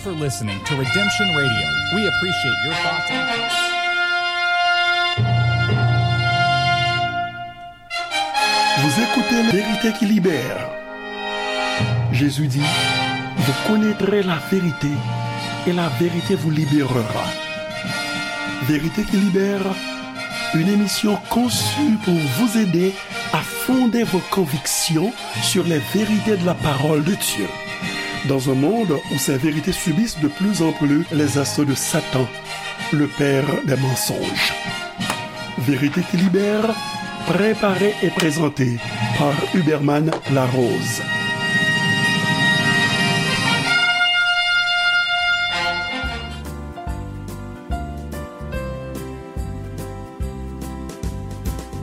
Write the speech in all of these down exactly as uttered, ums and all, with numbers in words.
for listening to Redemption Radio. We appreciate your thoughts and Vous écoutez La vérité qui libère. Jésus dit, vous connaîtrez la vérité et la vérité vous libérera. Vérité qui libère, une émission conçue pour vous aider à fonder vos convictions sur les vérités de la parole de Dieu. Dans un monde où ces vérités subissent de plus en plus les assauts de Satan, le père des mensonges. Vérité qui libère, préparée et présentée par Huberman Larose.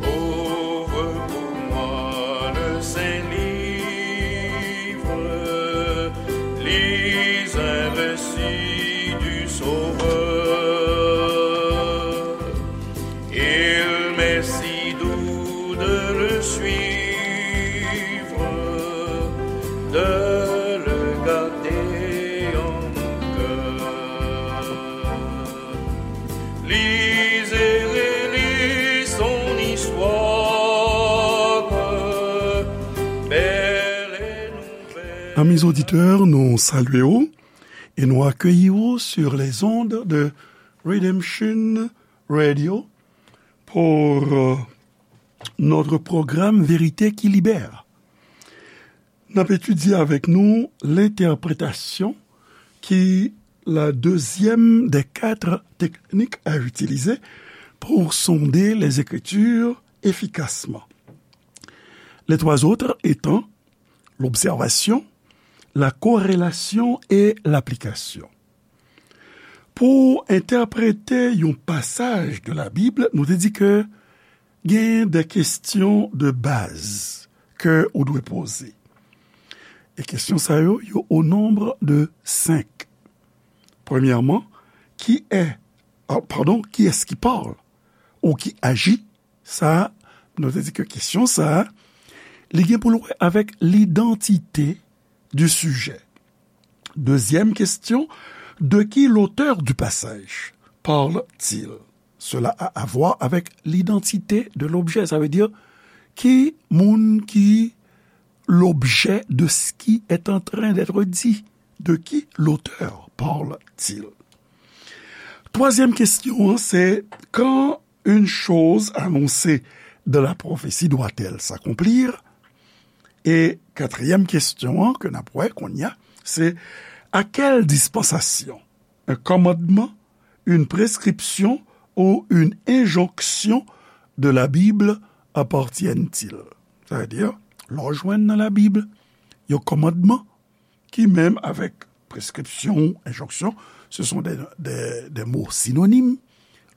Ouvre pour moi le Saint Livre, lis un récit du Sauveur. Il m'est si doux de le suivre, de le garder en cœur. Lis et relis son histoire, belle et nouvelle. Amis auditeurs, nou salye w e nou akeyi w sur les ondes de Redemption Radio pour euh, notre programme Vérité qui libère. N ap etidye avèk nou l'interprétation, qui la deuxième des quatre techniques à utiliser pour sonder les Écritures efficacement. Les trois autres étant l'observation, la corrélation et l'application. Pou entèprete yon pasaj de la Bib, nou te di ke gen de kesyon de baz ke ou dwe poze. E kesyon sa yo, yo au nombre de cinq. Premyèman, qui est, ah, pardon, qui est-ce qui parle? Ou qui agit? Sa, nou te di ke kesyon sa, li gen pou l wè avèk l'identité du sujet. Deuxième question, de qui l'auteur du passage parle-t-il? Cela a à voir avec l'identité de l'objet. Sa vle di, ki moun ki l'objet de ce qui est en train d'être dit? De qui l'auteur parle-t-il? Twazyèm kesyon an, se quand une chose annoncée dans la prophétie doit-elle s'accomplir? E katriyèm kesyon an ke n ap wè kounye a, se à quelle dispensation un commandement, une prescription ou une injonction de la Bible appartiennent-ils? Sa vle di, lè w jwenn nan Labib yon kòmandman ki menm avèk preskripsyon, enjonksyon, ce sont des, des, des mots synonymes.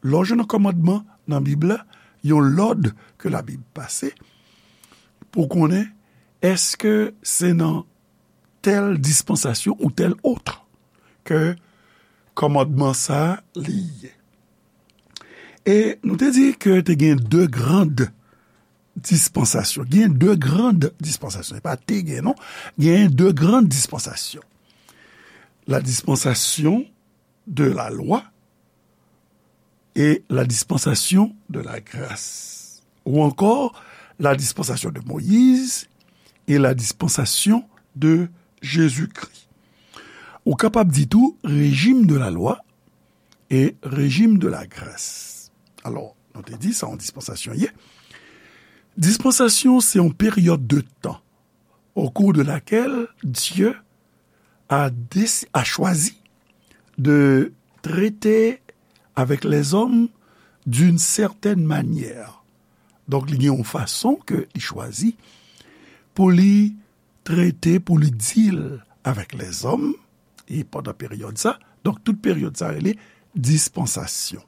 Lè w jwenn yon kòmandman nan Bib la, yon lòd ke Labib pase, pou konnen èske se nan tèl dispansasyon ou tèl ot ke kòmandman sa a li ye. E nou te di ke te gen de grand dispansasyon. Gen de grand dispansasyon. E pa te gen, non. Gen de grand dispansasyon. La dispensation de la loi et la dispensation de la grâce. Ou encore la dispensation de Moïse et la dispensation de Jésus-Christ. Ou kapab di tou régime de la loi et régime de la grâce. Alò, nou te di sa yon dispansasyon ye. Dispansasyon, se yon peryòd de tan au cours de laquelle Dieu a, déci- a choisi de traiter avec les hommes d'une certaine manière. Donk, li gen yon fason ke li chwazi pou li trete, pou li deal avèk lèzòm, e pandan peryòd sa, donk tout peryòd sa rele dispansasyon.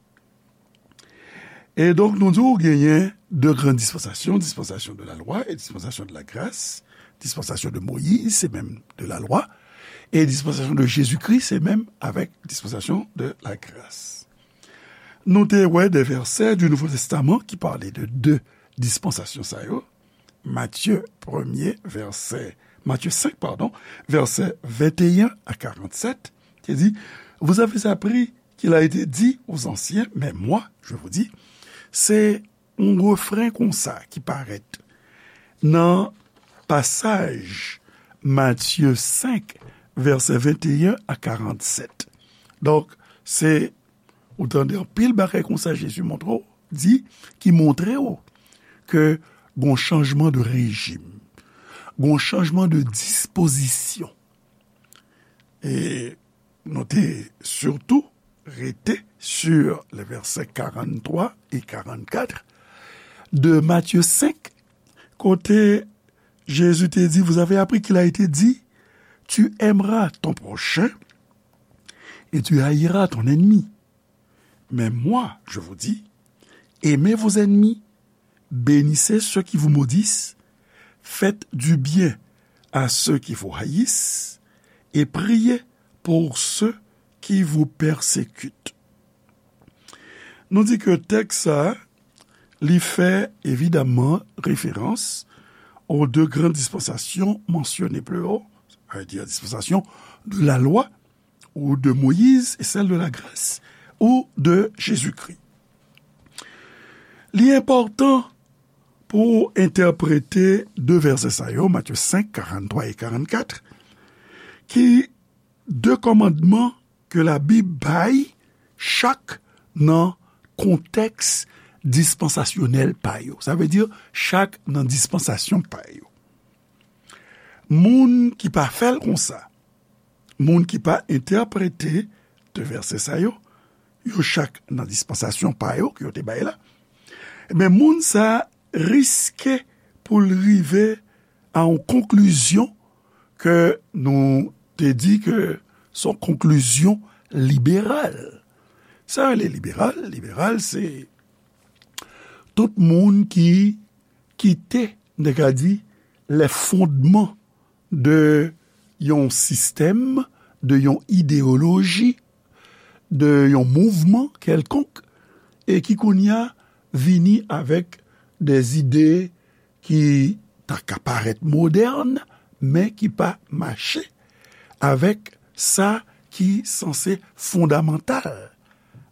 E donk, nou di w genyen de gran dispansasyon, dispensation de la loi et dispensation de la grâce. Dispensation de Moïse, se menm de la loi. E dispensation de Jésus-Christ, se menm avèk dispensation de la grâce. Nou te wè de vèsè du Nouveau Testament ki pale de de dispensasyon sa yo. Matye premye vèsè, Matye senk, padon, vèsè venteyen a karannsèt, te di, vous avez appris qu'il a été dit aux anciens, mais moi, je vous dis, se yon refren konsa ki parèt nan pasaj Matye senk, vèsè venteyen a karannsèt. Donk, se, ou tande anpil bagay konsa Jezi montre w, di, ki montre w ke gon chanjman de rejim, gon chanjman de dispozisyon. E nou te sitou rete sur les versets quarante-trois et quarante-quatre de Matthieu cinq, kote Jezi te di, vous avez appris qu'il a été dit, tu aimeras ton prochain et tu haïras ton ennemi. Mais moi, je vous dis, aimez vos ennemis, bénissez ceux qui vous maudissent, faites du bien à ceux qui vous haïssent, et priez pour ceux qui vous persécutent. Nou di ke tèks sa, li fè evidaman referans aux deux grandes dispensations mentionnées plus haut, c'est-à-dire dispensation de la loi ou de Moïse et celle de la grâce ou de Jésus-Christ. Li enpòtan pou entèprete de vèsè sa yo, Matthieu cinq, quarante-trois et quarante-quatre, ki de kòmandman ke Labib bay chak nan kontèks dispansasyonèl pa yo. Sa vle di chak nan dispansasyon pa yo. Moun ki pa fè l konsa, moun ki pa entèprete de vèsè sa yo, yo chak nan dispansasyon pa yo ke yo te bay la, men moun sa riske pou l rive a yon konklizyon ke nou te di ke se yon konklizyon liberal. Sa rele liberal, liberal se tout moun ki kite, n te ka di, les fondements de yon sistèm, de yon ideyoloji, de yon mouvman kèlkonk, e ki kounye a vini avèk de zide ki ta ka parèt modèn, men ki pa mache avèk sa ki sanse fondamantal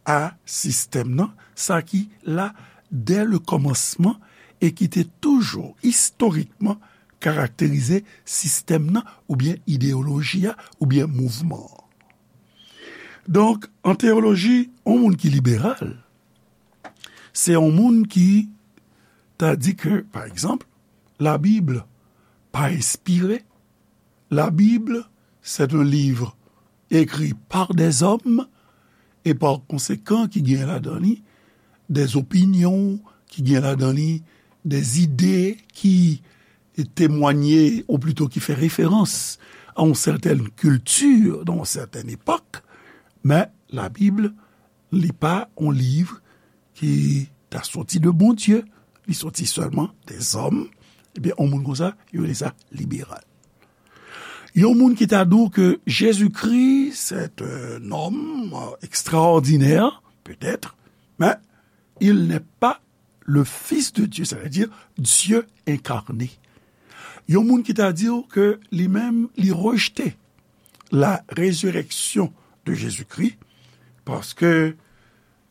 a sistèm nan, sa ki la dè le kòmansman e ki te toujou istorikman karakterize sistèm nan oubyen ideyoloji a oubyen mouvman an. Donk, an teyoloji, yon moun ki liberal, se yon moun ki ta di ke, pa egzanp, Labib pa enspire. La Bible, c'est un livre écrit par des hommes, e pa konsekan ki gen ladan li des opinions, ki gen ladan li des idées ki témoignent, ou plutôt ki fè référence à une certaine culture dans une certaine époque, men Labib, li pa yon liv ki ta soti de Bondye, li soti sèlman des hommes, ebyen, yon moun konsa, yo rele sa liberal. Yon moun ki ta di w ke Jezikri, c'est un homme, euh, extraordinaire, peut-être, mais il n'est pas le Fils de Dieu, c'est-à-dire Dieu incarné. Yon moun ki ta di w ke li menm, li rejte la résurrection de Jésus-Christ, paske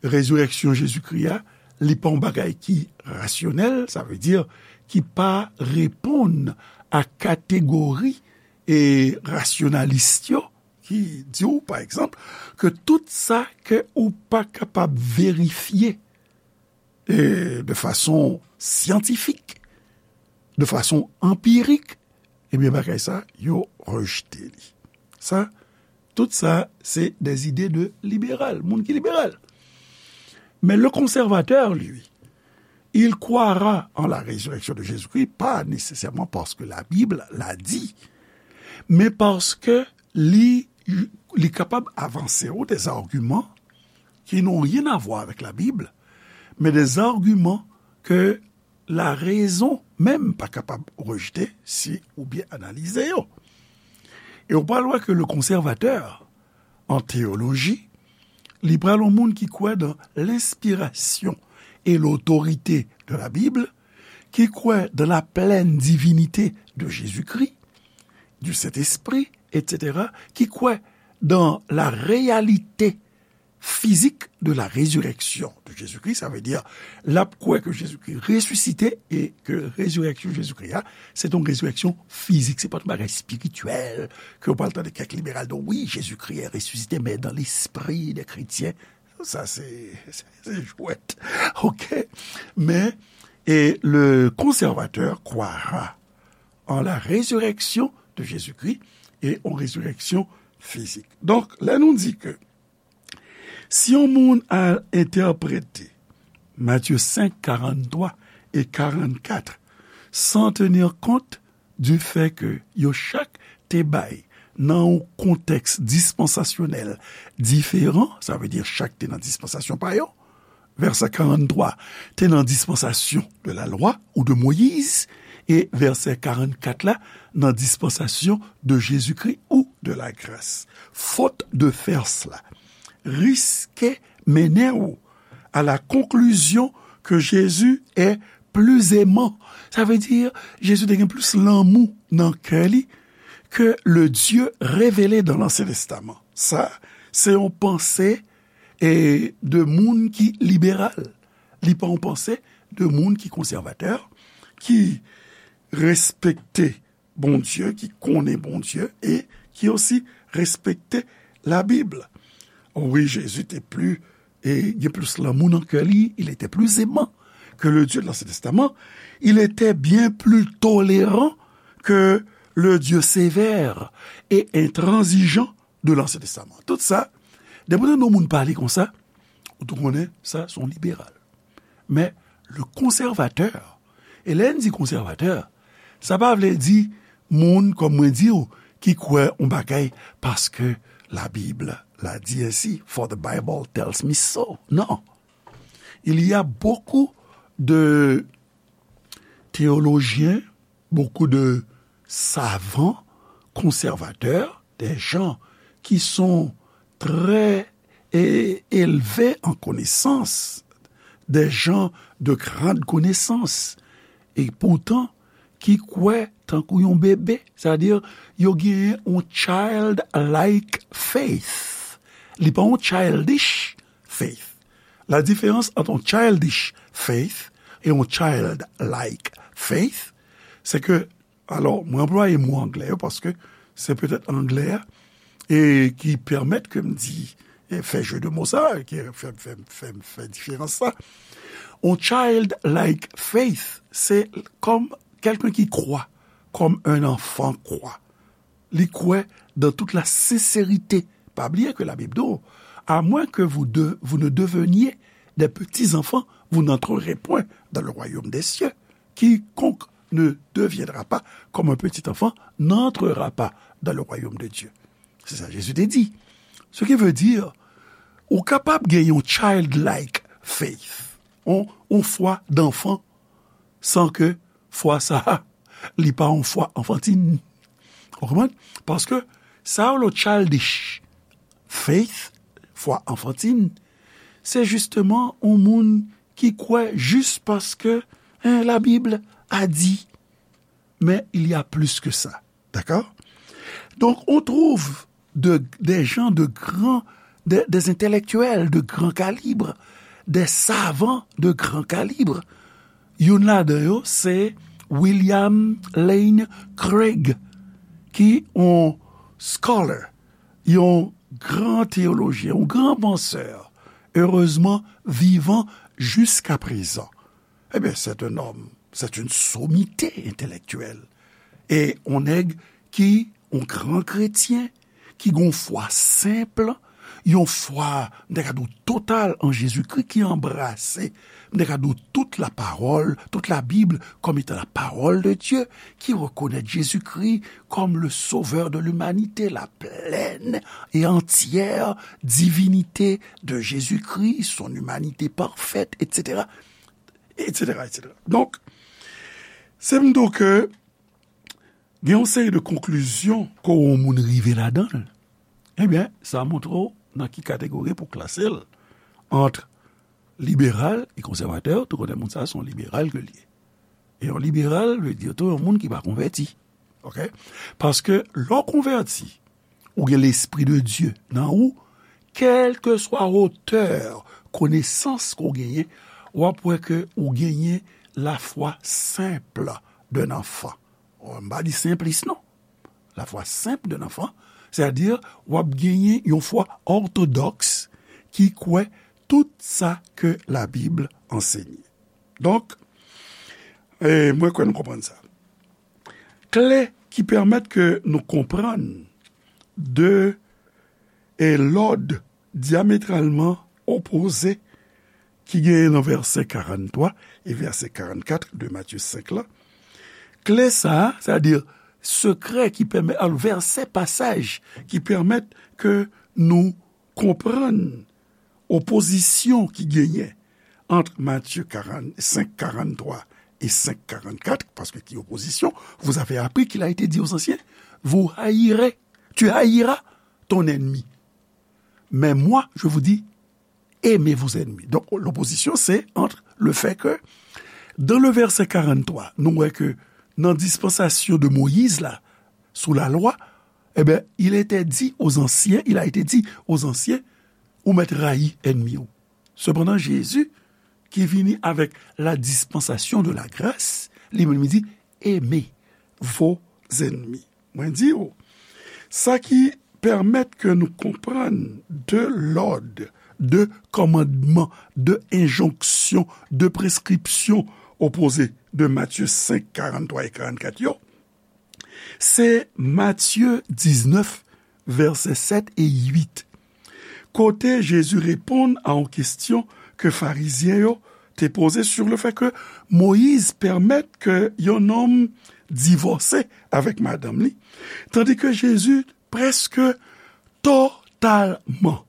rezirèksyon Jezikri a, li pa yon bagay ki rasyonèl, sa vle di ki pa reponn a kategori e rasyonalis yo, ki di w, pa egzanp, ke tout sa ke ou pa kapab verifye, e, de fason syantifik, de fason anpirik, ebyen, bagay sa, yo rejte li. Sa, tout sa, se des idées de libéral, moun ki liberal. Mais le conservateur, lui, il croira en la résurrection de Jésus-Christ, pas nécessairement parce que la Bible l'a dit, mais parce que li, li kapab avanse w des arguments qui n'ont rien à voir avec la Bible, mais des arguments que la raison menm pa kapab rejte si ou byen analize yo. E ou pral wè ke le conservateur, an teyoloji, li pral yon moun ki kwè dans l'inspiration et l'autorité de la Bible, ki kwè dans la pleine divinité de Jésus-Christ, du Saint-Esprit, et cetera, ki kwè dans la réalité physique de la résurrection de Jésus-Christ, sa vle di, l ap kwè ke Jezikri resisite e ke rezireksyon Jezikri a, se yon rezireksyon fizik, se pa yon bagay espirityèl, ke w pral tande kèk liberal di, wi, Jezikri est ressuscité, mais dans l'esprit des chrétiens. Sa, se, se, se jwèt. Oke? Men, e le conservateur croira en la résurrection de Jésus-Christ et en résurrection physique. Donk, lè nou di ke si yon moun al entèprete Matye senk, karanntrwa e karannkat san tenir kont du fait que yo chak te bay nan yon kontèks dispansasyonèl diferan, sa vle di chak te nan dispansasyon pa yo, vèsè karanntrwa te nan dispansasyon de la loi ou de Moïse, e vèsè karannkat la nan dispansasyon de Jésus-Christ ou de la grâce. Faute de faire cela riske mennen w à la conclusion que Jésus est plus aimant. Sa vle di, Jezi te gen plis lanmou nan kè li ke le Dieu révélé dans l'Ancien Testament. Sa, se yon panse e de moun ki liberal. Li pa yon panse de moun ki konsèvatè, ki respekte Bondye, ki konnen Bondye e ki osi respekte Labib. Wi, Jezi te pli, e gen plis lanmou nan kè li, il était plus aimant que le Dieu de l'Ancien Testament, il était bien plus tolérant que le Dieu sévère et intransigeant de l'Ancien Testament. Tout sa, depi w tande yon moun pale konsa, ou tou konnen sa se yon liberal. Men, le conservateur, e lè n di konsèvatè, sa pa vle di moun, kòm mwen di w, ki kwè yon bagay paske Labib la di ensi, for the Bible tells me so. Non. Il y a beaucoup de théologiens, beaucoup de savants conservateurs, des gens qui sont très é- élevés en connaissance, des gens de grande connaissance, e poutan ki kwè tankou yon bebe, sètadi yo genyen yon childlike faith. Li pa yon childish faith. La différence entre un childish faith et un childlike faith, c'est que, alò, mwen anplwaye mo anglè yo paske se petèt anglè a e ki pèmèt ke m di, e fè je de mo sa, ki fè, fè, fè, fè diferans sa. Un childlike faith, se kòm quelqu'un qui croit comme un enfant croit. Li kwè dans toute la sincérité. Pa bliye ke Labib di w, à moins que vous, de, vous ne deveniez des petits enfants, vous n'entrerez point dans le royaume des cieux. Quiconque ne deviendra pas comme un petit enfant n'entrera pas dans le royaume de Dieu. Se sa Jezi te di. Ce qui veut dire, ou kapab gen yon childlike faith, yon, yon fwa danfan, san ke fwa sa a, li pa yon fwa anfantin. Ou konprann? Paske sa yo le childish faith, fwa anfantin, se jisteman yon moun ki kwè jis paske, hein, la Bible a dit. Mais il y a plus que ça. D'accord? Donc, on trouve de, des gens de grand, des, des intellectuels de grand calibre, des savants de grand calibre. Youn ladan yo, se William Lane Craig, ki yon scholar, yon gran teyolojyen, yon gran pansè, erezman vivan jiska prezan. Ebyen, c'est un homme, c'est une sommité intellectuelle. E yon nèg ki, yon gran kretyen, ki gen yon fwa senp, yon fwa, m ta ka di w, total an Jezikri, ki anbrase, m ta ka di w, tout la parole, toute la Bible comme étant la parole de Dieu, ki rekonèt Jezikri comme le sauveur de l'humanité, la pleine et entière divinité de Jésus-Christ, son humanité parfaite, et cetera, et cetera, et cetera. Donk, se m di w ke gen yon seri de konklizyon ke yon moun rive ladan l. Ebyen, sa montre w nan ki kategori pou klase l ant liberal e konsèvatè. Ou tou konnen moun sa a se yon liberal ke l ye. E yon liberal vle di tou yon moun ki pa konvèti. Oke? Paske lè w konvèti, ou gen Lespri de Dye nan ou, kèlkeswa wotè konesans ke w genyen, w ap wè ke ou genyen lafwa senp d'un enfant. M pa di senplis non. Lafwa senp d'un enfant, sètadi w ap genyen yon fwa òtodòks ki kwè tout sa ke Labib ansenye. Donk, e, mwen kwè nou konprann sa. Kle ki pèmèt ke nou konprann de e lòd dyametralman opoze ki genyen nan vèsè karannntwa e vèsè karannkat de Matye senk la. Kle sa a, sètadi sekrè ki pèmèt, alò, vèsè, pasaj ki pèmèt ke nou konprann opozisyon ki genyen ant Matye karannsenk karannntwa e senk karannkat, paske ki opozisyon, vous avez appris qu'il a été dit aux anciens, vous haïrez, tu haïras ton ennemi. Mais moi, je vous dis, aimez vos ennemis. Donc, l'opposition, c'est entre le fait que, dans le verset karannntwa, nou wè ke nan dispansasyon de Moyiz la, sou la lwa, eh ben, il était dit aux anciens, il a été dit aux anciens, ou mèt rayi ènmi w. Sepandan, Jezi, ki vini avèk la dispensation de la grâce, li menm li di, aimez vos ennemis. Mwen di w, sa ki pèmèt ke nou konprann de lòd, de kòmandman, de enjonksyon, de preskripsyon opoze de Matye senk, karannntwa e karannkat yo, se Matye diznèf, vèsè sèt e uit, kote Jezi reponn a yon kesyon ke Farizyen yo te poze sur le fait que Moyiz pèmèt ke yon nonm divòse avèk madanm li, tandi ke Jezi prèske totalman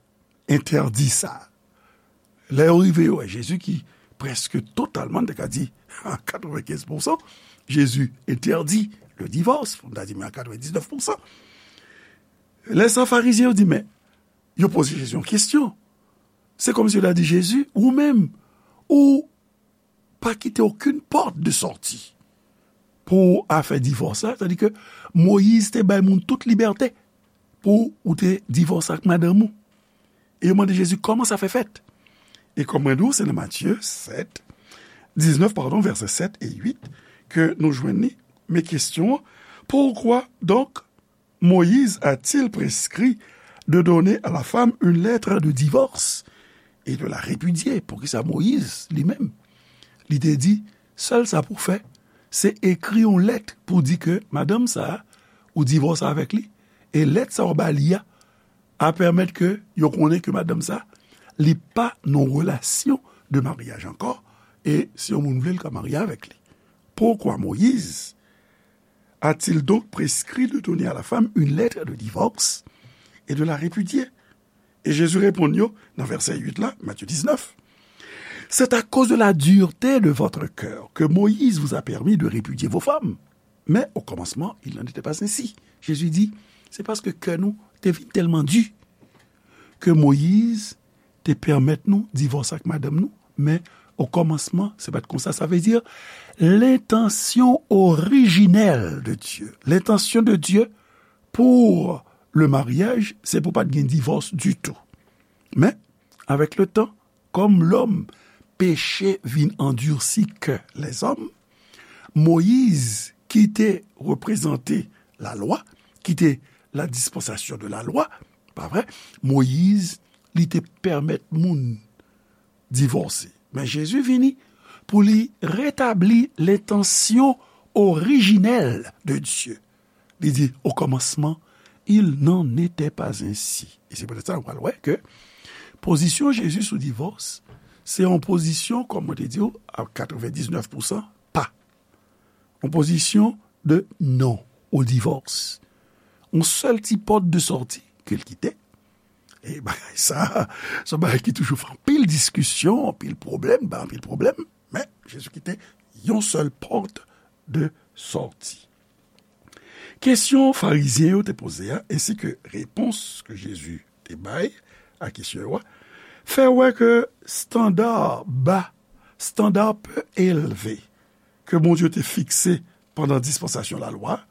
entèdi sa. Lè yo rive, yo wè Jezi ki prèske totalman, n te ka di a katrevenkenz pousan, Jezi entèdi le divòs, pou n ta di men a katrevendiznèf pousan. Lè sa, Farizyen yo di, men, yo poze Jezi yon kesyon. Se kòmsi yo ta di Jezi, ou menm, ou pa kite okenn pòt de sòti pou afè divòs la, sètadi ke Moyiz te bay moun tout libète pou ou te divòse ak madanm ou. E yo mande Jezi, kòman sa fè fèt? E kòm mwen di w, se nan Matye sèt, diznèf, padon, vèsè sèt e uit, ke nou jwenn li. Men kesyon an, pourquoi donc Moïse a-t-il prescrit de donner à la femme une lettre de divorce et de la répudier? Poukisa Moyiz, li menm, li te di, sèl sa pou fè, se ekri yon lèt pou di ke madanm sa a, ou divòse avèk li, e lèt sa a ou ba li a, a pèmèt ke yo konnen ke madanm sa, li pa nan relasyon de maryaj ankò, e si yon moun vle, l ka marye avèk li. Pourquoi Moïse a-t-il donc prescrit de donner à la femme une lettre de divorce et de la répudier? E Jezi reponn yo nan vèsè uit la, Matye diznèf. C'est à cause de la dureté de votre cœur que Moïse vous a permis de répudier vos femmes. Mais au commencement, il n'en était pas ainsi. Jezi di, se paske kè nou te vin tèlman di ke Moyiz te pèmèt nou divòse ak madanm nou, men o kòmansman, se pa t konsa. Sa vle di, l'intention originelle de Dieu, l'intention de Dieu pour le mariage, se pou pa t gen divòs ditou. Men, avèk le tan, kòm lòm, peche vin andisi kè lèzòm, Moyiz, ki te reprezante lalwa, ki te la dispensasyon de lalwa, pa vre? Moyiz, li te pèmèt moun divòse. Men Jezi vini pou li retabli lentansyon orijinèl de Dye. Li di, au commencement, il n'en était pas ainsi. E se poutèt sa, nou pral wè ke pozisyon Jezi sou divòs, se yon pozisyon, kòm mwen te di w, a katrevendiznèf pousan pa. Yon pozisyon de non o divòs. Yon sèl ti pòt de sòti ke l kite. E bagay sa, se yon bagay ki toujou fè anpil diskisyon, anpil pwoblèm, bay anpil pwoblèm. Men, Jezi kite yon sèl pòt de sòti. Kesyon Farizyen yo te poze a, ensi ke repons ke Jezi te bay a kesyon yo a, fè wè ke estanda ba, estanda pe elve ke Bondye te fikse pandan dispansasyon lalwa,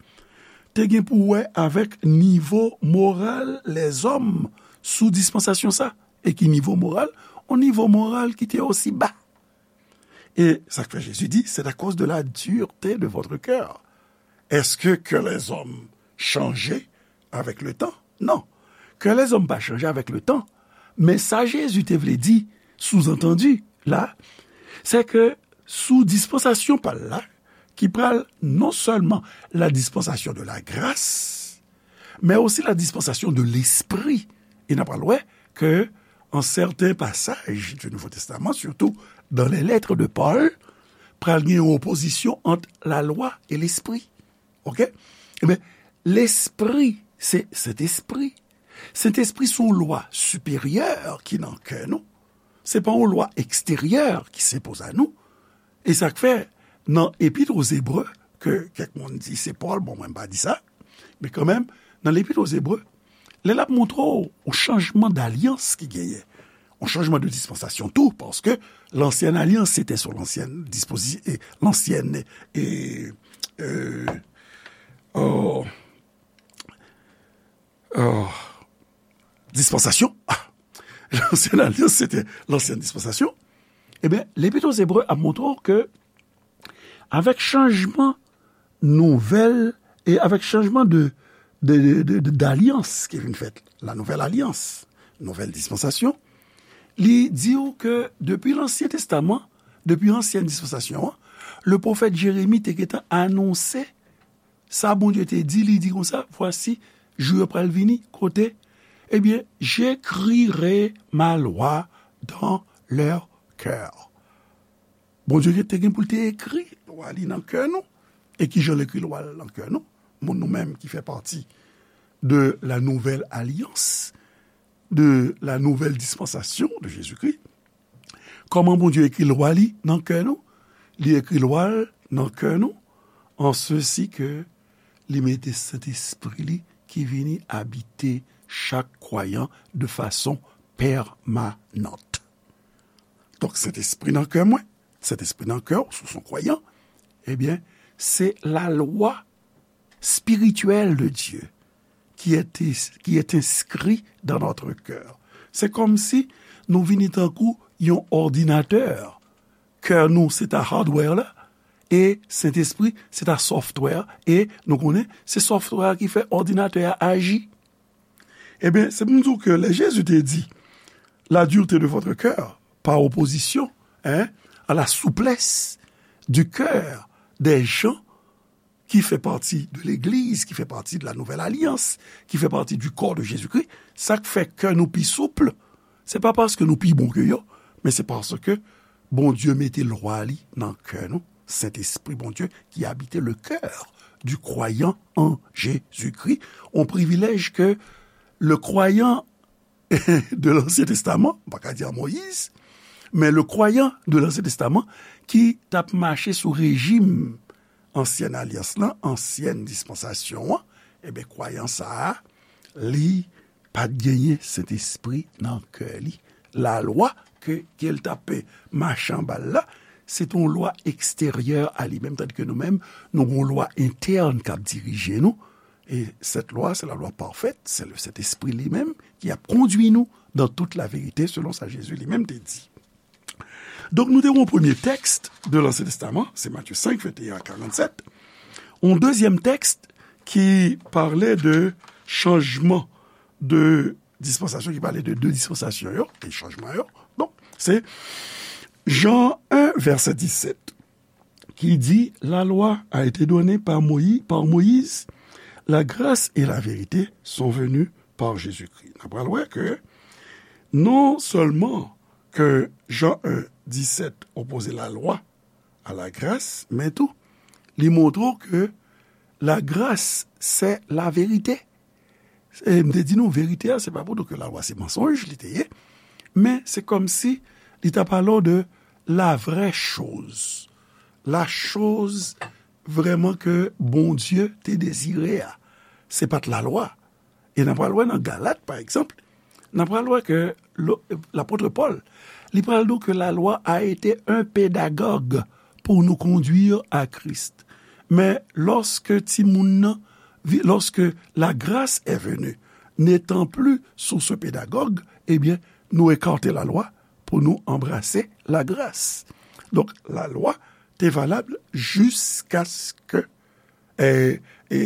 te gen pou wè avèk nivo moral lèzòm sou dispansasyon sa. E ki nivo moral? Yon nivo moral ki te osi ba. E sa k fè Jezi di, c'est à cause de la dureté de votre cœur. Est-ce que cœur les hommes change avec le temps? Non. Kè lèzòm pa chanje avèk le tan. Men sa Jezi te vle di, souzantandi, la, se ke sou dispansasyon pa l la, ki pral non sèlman la dispensation de la grâce, men osi la dispensation de l'esprit. E n a pral wè ke an sèten pasaj du Nouveau Testament, surtout dans les lettres de Paul, pral gen yon opozisyon ant la lwa e lespri. Oke? Ebyen, lespri, se Sentespri. Sentespri se yon lwa siperyè ki nan kè nou. Se pa yon lwa eksteryè ki se poze a nou. E sa k fè, nan Epit o Zebre, ke kèk moun di se Pòl, bon, mwen m pa di sa, men kanmenm, nan Lepit o Zebre, lè l ap montre w yon chanjman dalyans ki genyen, yon chanjman de dispansasyon tou, paske lansyèn alyans, se te sou lansyèn dispozi-, e, lansyèn, e, e, o, o, dispansasyon. Ah, lansyèn alyans, se te lansyèn dispansasyon. Ebyen, Lepit o Zebre ap montre w ke avèk chanjman nouvèl, e avèk chanjman de, de, de, de, de, dalyans ki vin fèt, la nouvèl alyans, nouvèl dispansasyon, li di w ke depi Lansyen Testaman, depi ansyèn dispansasyon an, le pwofèt Jeremi te gentan anonse sa Bondye te di, li di konsa, voici, jou yo pral vini, kote, ebyen, j'écrirai ma loi dans leur cœur. Bondye te gen pou l te ekri lwa li nan kè nou. E ki jan l ekri lwa l nan kè nou? Moun nou menm ki fè pati de la nouvèl alyans, de la nouvèl dispansasyon de Jezikri. Kòman Bondye ekri lwa li nan kè nou? Li ekri lwa l nan kè nou, an sesi ke li mete Sentespri li ki vini abite chak kwayan de fason pèmanant. Donk, Sentespri nan kè mwen, Sentespri nan kè w, si w se yon kwayan, ebyen, se la lwa spirituelle de Dieu qui est, qui est inscrit dans notre cœur. Se kòmsi nou vini tankou yon òdinatè. Kè nou, se ta hardware la, e Sentespri, se ta software, e nou konnen, se software a ki fè òdinatè a aji. Ebyen, se pou m di w ke lè Jezi te di, la dureté de votre cœur, par opposition, hein, à la souplesse du cœur des gens qui fait partie de l'Église, qui fait partie de la Nouvelle Alliance, qui fait partie du corps de Jésus-Christ, sa k fè kè nou pi souple, se pa paske nou pi bon ke yo, men se paske Bondye mete lwa li nan kè nou, Sentespri Bondye qui habite le cœur du croyant en Jésus-Christ, yon privilèj ke le croyant de l'Ancien Testament, m pa ka di an Moyiz, men le croyant de l'Ancien Testament ki t ap mache sou rejim ansyèn alyans lan, ansyèn dispansasyon an, ebyen, kwayan sa a, li pa t genyen Sentespri nan kè li. Lalwa ke, ke l t ap mache anba l la, se t yon lwa eksteryè a li menm, tandike nou menm, nou gen yon lwa entèn k ap dirije nou. E cette loi, c'est la loi parfaite, c'est le Saint-Esprit li menm ki ap kondui nou dans toute la vérité, selon sa Jezi li menm te di. Donk, nou te gen yon premye tèks de l'Ancien Testament, se Matye senk, venteyen a karannsèt. Yon dezyèm tèks ki pale de chanjman de dispansasyon, ki pale de de dispansasyon yo, e chanjman yo. Donk, se Jan en, vèsè disèt, ki di, la loi a été donnée par Moï-, par Moïse, la grâce et la vérité sont venues par Jésus-Christ. N ap pral wè ke non sèlman ke Jan en, disèt opoze la lwa a la gras, men tou, li montre w ke la gras, c'est la vérité. E m te di nou, verite a, se pa pou di ke lalwa se mansonj li te ye, men se kòmsi li ta pale w de la vraie chose, la chose vrèman ke Bondye te dezire a. Se pa t lalwa. E n a pral wè nan Galat, pa egzanp, n a pral wè ke lo-, lapot Pòl, li pral di w ke la loi a été un pédagogue pour nous conduire à Christ. Men lòske timoun nan vi-, lorsque la grâce est venue, n'étant plus source pédagogue, ebyen, nou ekate lalwa pou nou anbrase lagras. Donk, lalwa te valab jiskaske, e, e,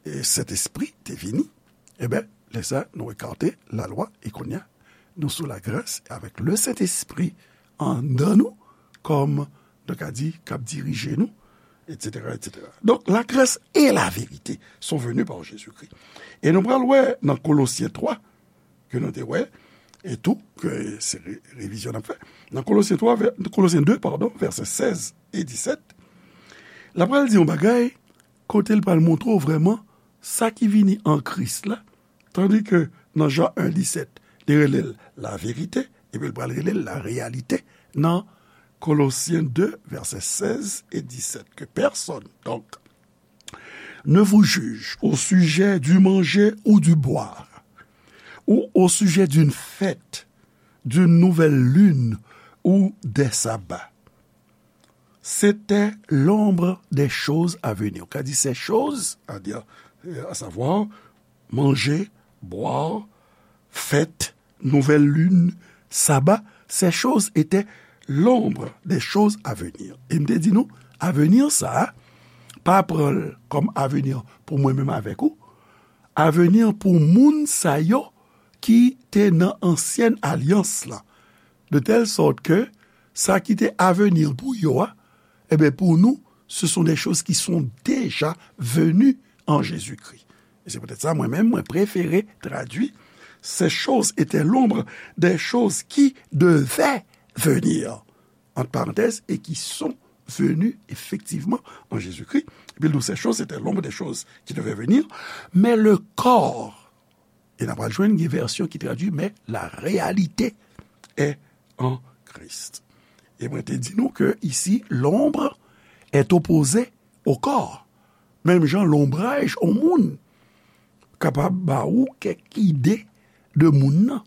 e, Sentespri te vini. Ebyen, lè sa, nou ekate lalwa, e kounye a, nou sou lagras, avèk le Sentespri anndan nou, kòm, nou ka di, k ap dirije nou, etsetera, etsetera. Donk, la grâce et la vérité sont venues par Jésus-Christ. E nou pral wè nan Kolosyen twa, ke nou te wè, e tou, ke se re-, revizyon n ap fè. Nan Kolosyen twa, vè-, Kolosyen de, padon, vèsè sèz e disèt, l ap pral di yon bagay, kote l pral montre w vrèman sa ki vini an Kris la, tandi ke nan Jan en disèt, li rele l la verite, epi l pral rele l la reyalite nan Kolosyen de, vèsè sèz e disèt, que personne, donc, ne vous juge au sujet du manger ou du boire, ou au sujet d'une fête, d'une nouvelle lune ou des sabbats. C'était l'ombre des choses à venir. Ou ka di ces choses, à dire, euh, à savoir, manger, boire, fête, nouvelle lune, sabbat, ces choses étaient l'ombre des choses à venir. E m te di nou, avenir sa a, pa pran l kòm avenir pou mwen menm avèk ou, avenir pou moun sa yo ki te nan ansyen alyans la. De telle sorte que sa ki te avenir pou yo a, ebyen, pou nou, ce sont des choses qui sont déjà venues en Jésus-Christ. E se poutèt sa, mwen menm, mwen prefere tradui, ces choses étaient l'ombre des choses qui devaient venir, entre parenthèses, et qui sont venues effectivement en Jésus-Christ. Epi l di w, ces choses étaient l'ombre des choses qui devaient venir, mais le corps, e n a pral jwenn gen vèsyon ki tradui, mais la réalité est en Christ. E mwen te di nou ke isi, l'ombre est opposé au corps. Menm jan lonbraj yon moun kapab ba ou kèk ide de moun nan,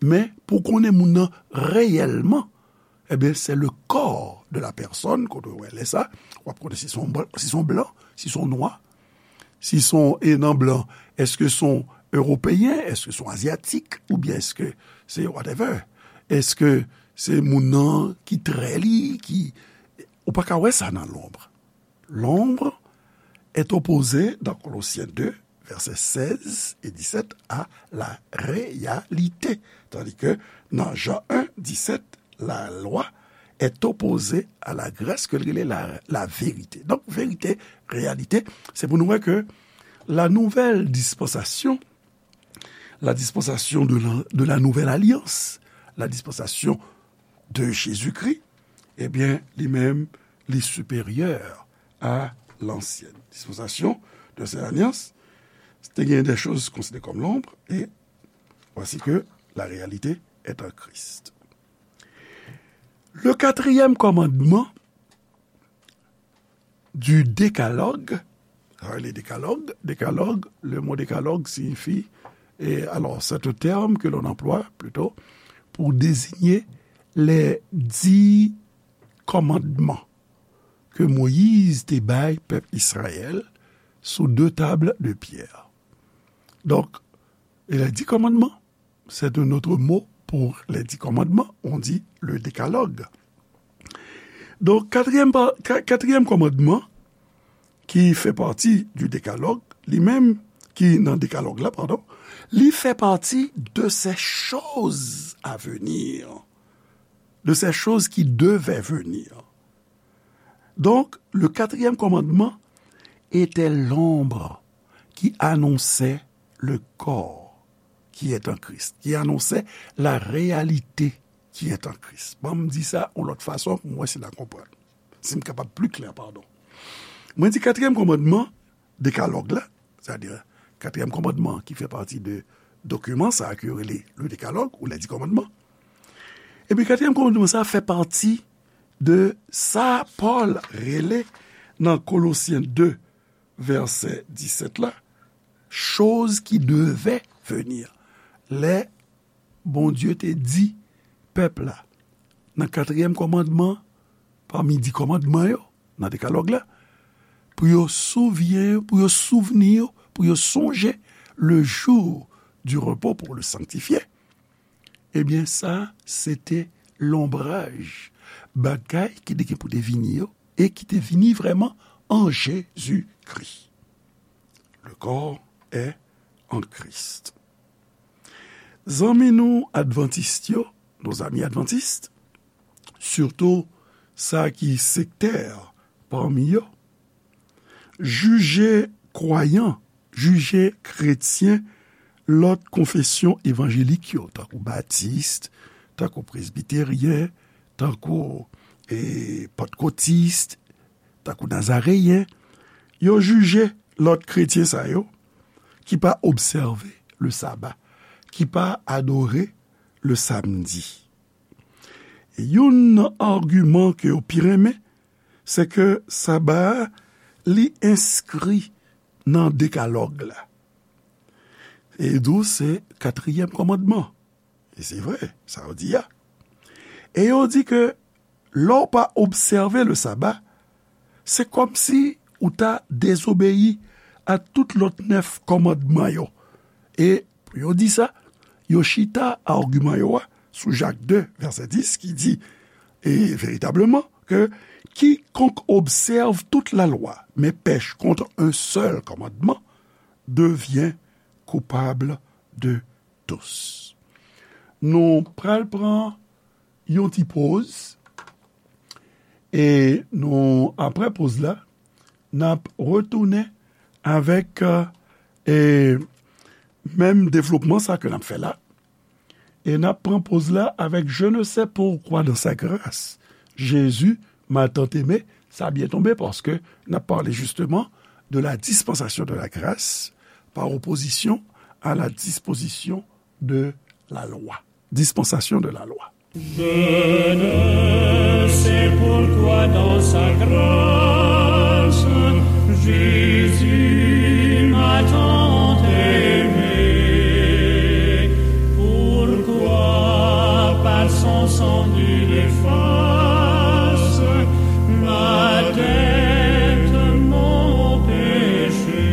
men pou konnen moun nan reyèlman, ebyen, c'est le corps de la personne, kote w wè lè sa, w ap konnen si se yon blan, si se yon blan, si se yon nwa, si se yon, e nan blan, èske se yon ewopeyen, èske se yon azyatik, oubyen èske se whatever? Èske se moun nan ki trè li, ki, ou pa ka wè sa nan lonb. L'ombre est opposé dans Colossiens deux, versets seize et dix-sept, à la réalité. Tandis que dans Jean un, dix-sept, la loi est opposée à la grâce, ke l rele la, la vérité. Donk, verite, reyalite, se pou nou wè ke la nouvelle dispensation, la dispensation de la, de la nouvelle alliance, la dispensation de Jésus-Christ, ebyen, li menm, li siperyè a lansyen dispensasyon de l'ancienne alliance. Te gen des choses considérées comme l'ombre, et voici que la réalité est en Christ. Le quatrième commandement du décalogue, ah, le décalogue, décalogue, le mot décalogue signifie, et alors, c'est un terme que l'on emploie plutôt pour désigner les dix commandements que Moïse te bay pèp Israël sous deux tables de pierre. Donc, et les dix commandements, c'est un autre mot pour les dix commandements, on dit le décalogue. Donk, katriyèm pa-, ka-, katriyèm kòmandman, ki fè pati du décalogue, li menm, ki nan décalogue la, pardon, li fè pati de ces choses à venir, de ces choses qui devaient venir. Donc, le quatrième commandement était l'ombre qui annonçait le corps qui est en Christ, qui annonçait la réalité qui est en Christ. Ban m di sa yon lòt fason pou mwen si n a konprann. Si m kapab pli klè, padon. Mwen di katriyèm kòmandman, dekalòg la, sètadi katriyèm kòmandman ki fè pati de dokiman sa a ke yo rele le décalogue ou les dix commandements. Epi katriyèm kòmandman sa a fè pati de sa Pòl rele nan Kolosyen de, vèsè disèt la, choses qui devaient venir. Lè Bondye te di pèp la, nan katriyèm kòmandman, pami dis kòmandman yo, nan dekalòg la, pou yo souvyen, pou yo souvni, pou yo sonje le jour du repos pour le sanctifier, ebyen, sa, se te lonbraj bagay ki te gen pou te vini yo, e ki te vini vrèman an Jezikri. Le corps est en Christ. Zanmi nou advantis yo, nos amis adventistes, sitou sa ki sektè pami yo, jije kwayan, jije kretyen lòt konfesyon evanjelik yo, tankou batis, tankou presbiteryen, tankou, e, pantkotis, tankou nazareyen, yo jije lòt kretyen sa yo ki pa obsève le saba, ki pa adore le samdi. E youn nan agiman ke yo pi renmen, se ke saba a, li enskri nan dekalòg la. E di w se katriyèm kòmandman. E se vre, sa yo di a. E yo di ke lè w pa obsève le saba, se kòmsi ou ta dezobeyi a tout lòt nèf kòmandman yo. E pou yo di sa, yo chita agiman yo a sou Jak de, vèsè dis, ki di, e veritableman, ke quiconque observe toute la loi, mais pèche contre un seul commandement, devient coupable de tous. Nou pral pran yon ti poz, e nou, apre poz la, n ap retounen avèk, e, menm devlopman sa ke n ap fè la. E n ap pran poz la avèk Je ne sais pourquoi dans sa grâce, Jésus m'a tant aimé. Sa byen tonbe paske n ap pale justement de la dispensation de la grâce par opposition à la disposition de la loi. Dispensation de la loi. Je ne sais pourquoi dans sa grâce, Jésus m'a tant aimé. Pourquoi par son sang il efface ma dette, mon péché.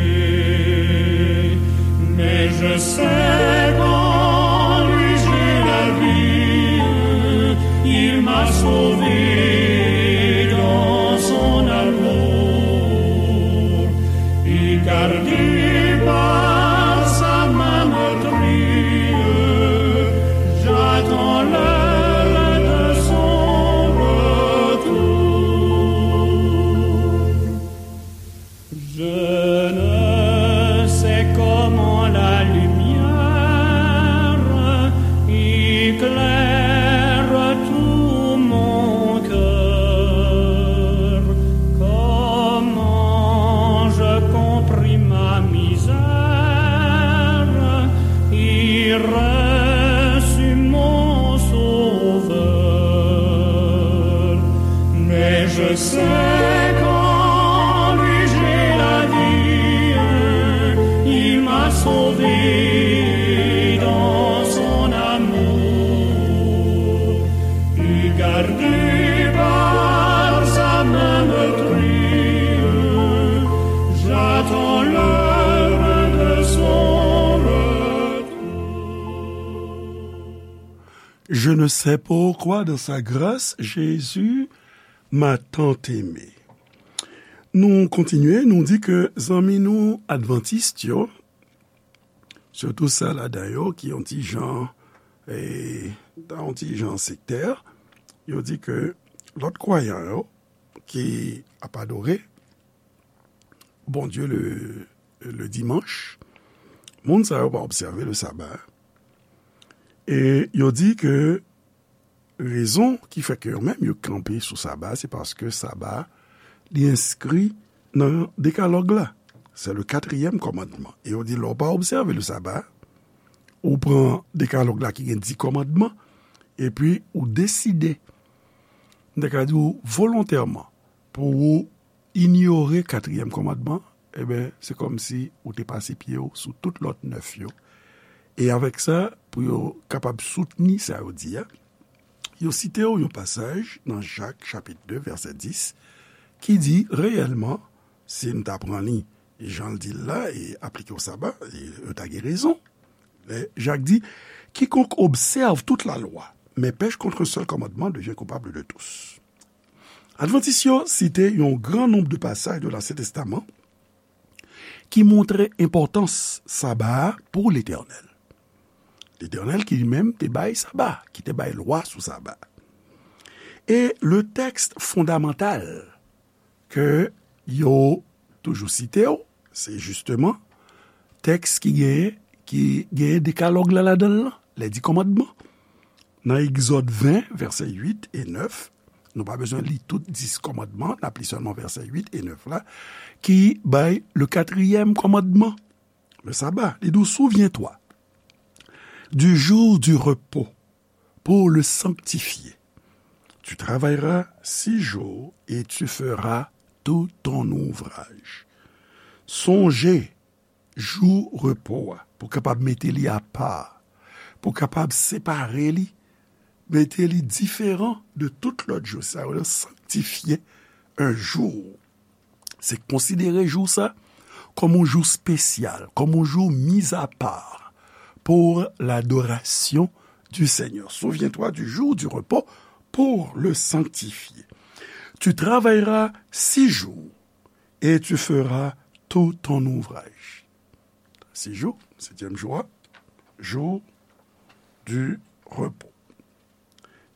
Mais je sais qu'en lui j'ai la vie, il m'a sauvé dans son amour. Et gardé par sa main meurtrie, j'attends l'heure de son retour. Je ne sais comment la lumière éclaire tout mon cœur, comment je compris ma misère et reçus mon Sauveur. Mais je sais qu'en lui j'ai la vie, il m'a sauvé dans son amour. Et gardé par sa main meurtrie, j'attends l'heure de son retour. Je ne sais pourquoi dans sa grâce, Jésus m'a tant aimé. Nou kontinye, nou di ke zanmi nou advantis yo, sitou sa ladan yo ki yon ti jan, e, yon ti jan sektè, yo di ke lòt kwayan yo ki ap adore Bondye le, le dimanch, moun sa yo pa obsève le saba. E yo di ke rezon ki fè ke yo menm yo kanpe sou saba, se paske saba, li enskri nan dekalòg la. Se le katriyèm kòmandman. E yo di, lè w pa obsève le saba, ou pran dekalòg la ki gen dis kòmandman, epi ou deside, m ta ka di w volontèman, pou ou inyore katriyèm kòmandman, ebyen, se kòmsi ou te pase pye w sou tout lòt nèf yo. E avèk sa, pou yo kapab soutni sa yo di a, yo site w yon pasaj nan Jak, chapit de, vèsè dis, ki di, reyèlman, si n ta pran li, jan l di l la, e aplike w saba, e, yo ta gen rezon. Lè Jak di, Quiconque observe toute la loi, mais pèche contre un seul commandement devient coupable de tous. Advantis yo site yon gran nonb de pasaj de Lansyen Testaman ki montre enpòtans saba a pou Letènèl. Letènèl ki li menm te bay saba, ki te bay lwa sou saba. E le tèks fondamantal ke yo toujou site yo, se jisteman tèks ki genyen, ki genyen dekalòg la ladan l lan, les dix commandements. Nan Egzòd ven, vèsè uit e nèf, nou pa bezwen li tout dis kòmandman, n ap li sèlman vèsè uit e nèf la, ki bay le quatrième commandement, le sabbat. Li di w, Souviens-toi du jour du repos pour le sanctifier. Tu travailleras six jours et tu feras tout ton ouvrage. Sonje jou repo a, pou kapab mete li apa, pou kapab separe li, mete li diferan de tout lòt jou. Sa yo rele sanctifier un jour. Se konsidere jou sa kòm yon jou espesyal, kòm yon jou mis à part pour l'adoration du Seigneur. Souviens-toi du jour du repos pour le sanctifier. Tu travailleras six jours et tu feras tout ton ouvrage. Six jours, septième jour, jour du repos.